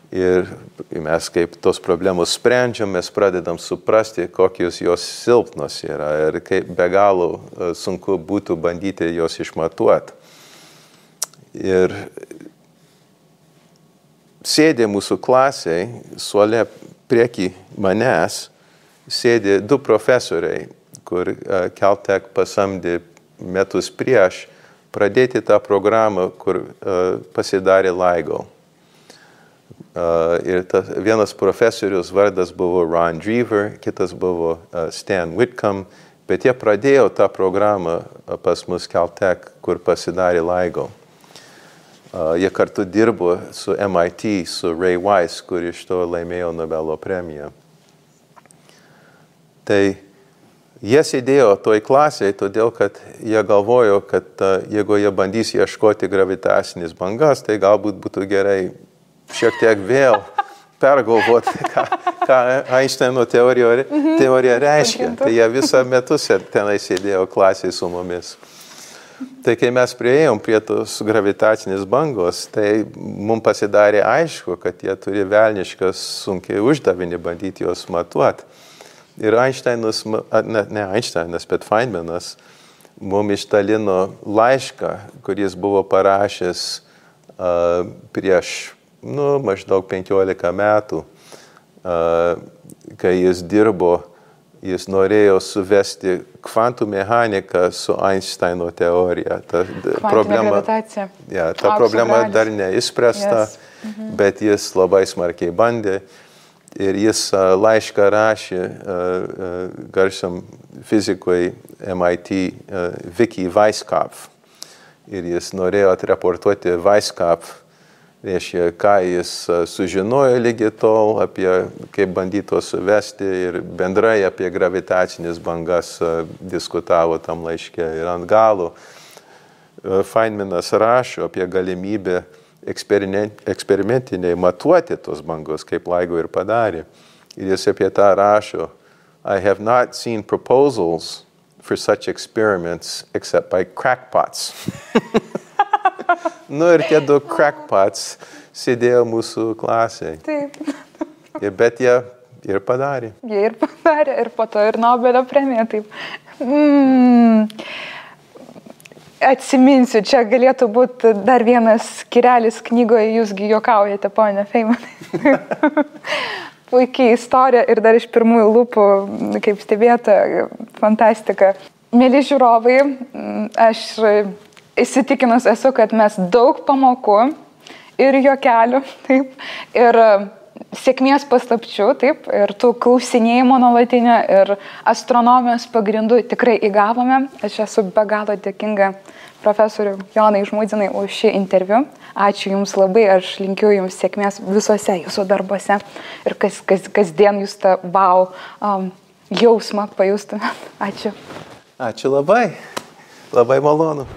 Ir mes kaip tos problemos sprendžiam, mes pradedam suprasti, kokios jos silpnos yra ir kaip be galo sunku būtų bandyti jos išmatuoti. Ir sėdė mūsų klasiai, suole prieki manęs, sėdė du profesoriai, kur Caltech pasamdė metus prieš pradėti tą programą, kur pasidarė LIGO. Ir vienas profesorius vardas buvo Ron Drever, kitas buvo Stan Whitcomb Bet jie pradėjo tą programą pas mus Caltech, kur pasidarė LIGO. Jie kartu dirbo su MIT, su Ray Weiss, kur iš to laimėjo Nobelio premiją. Tai jie sėdėjo toj klasėje, todėl kad jie galvojo, kad jeigu jie bandys ieškoti gravitacinės bangas, tai galbūt būtų gerai šiek tiek vėl pergalvoti, ką Einšteino teorija reiškia. Tai jie visą metus tenai sėdėjo klasėje su mumis. Tai kai mes priėjom prie tos gravitacinės bangos, tai mums pasidarė aišku, kad jie turi velniškas sunkiai uždavinį bandyti juos matuoti. Ir Einšteinas, ne Einšteinas, bet Feynmanas mums išdalino laišką, kuris buvo parašęs prieš maždaug 15 metų, kai jis dirbo. Jis norėjo suvesti kvantų mechaniką su Einsteino teorija. Ta problema dar neišspręsta, bet jis labai smarkiai bandė. Ir jis laišką rašė garsiam fizikui MIT Vicky Weisskopf. Ir jis norėjo atreportuoti Weisskopf, reiškia, ką jis sužinojo lygiai tol, apie kaip bandyto suvesti ir bendrai apie gravitacinės bangas diskutavo tam laiške. Ir ant galo Feynmanas rašo apie galimybę eksperimentiniai matuoti tos bangos, kaip LIGO ir padarė. Ir jis apie tą rašo: I have not seen proposals for such experiments except by crackpots. Ir tie du crackpots sėdėjo mūsų klasėje. Taip. Bet jie ir padarė. Jie ir padarė, ir po to ir Nobelio premija. Taip. Atsiminsiu, čia galėtų būti dar vienas skyrelis knygoje, jūsgi juokaujate, ponia Feynmanai. Puikiai istorija ir dar iš pirmųjų lūpų, kaip stebėta, fantastika. Mėly žiūrovai, aš įsitikinus esu, kad mes daug pamokų ir juokelių, taip, ir sėkmės paslapčių, taip, ir tų klausinėjimų nuolatinio ir astronomijos pagrindų tikrai įgavome. Aš esu be galo dėkinga profesoriui Jonai Žmudzinai už šį interviu. Ačiū Jums labai, aš linkiu Jums sėkmės visuose Jūsų darbuose ir kasdien Jūs tą wow jausmą pajustumėt. Ačiū. Ačiū labai. Labai malonu.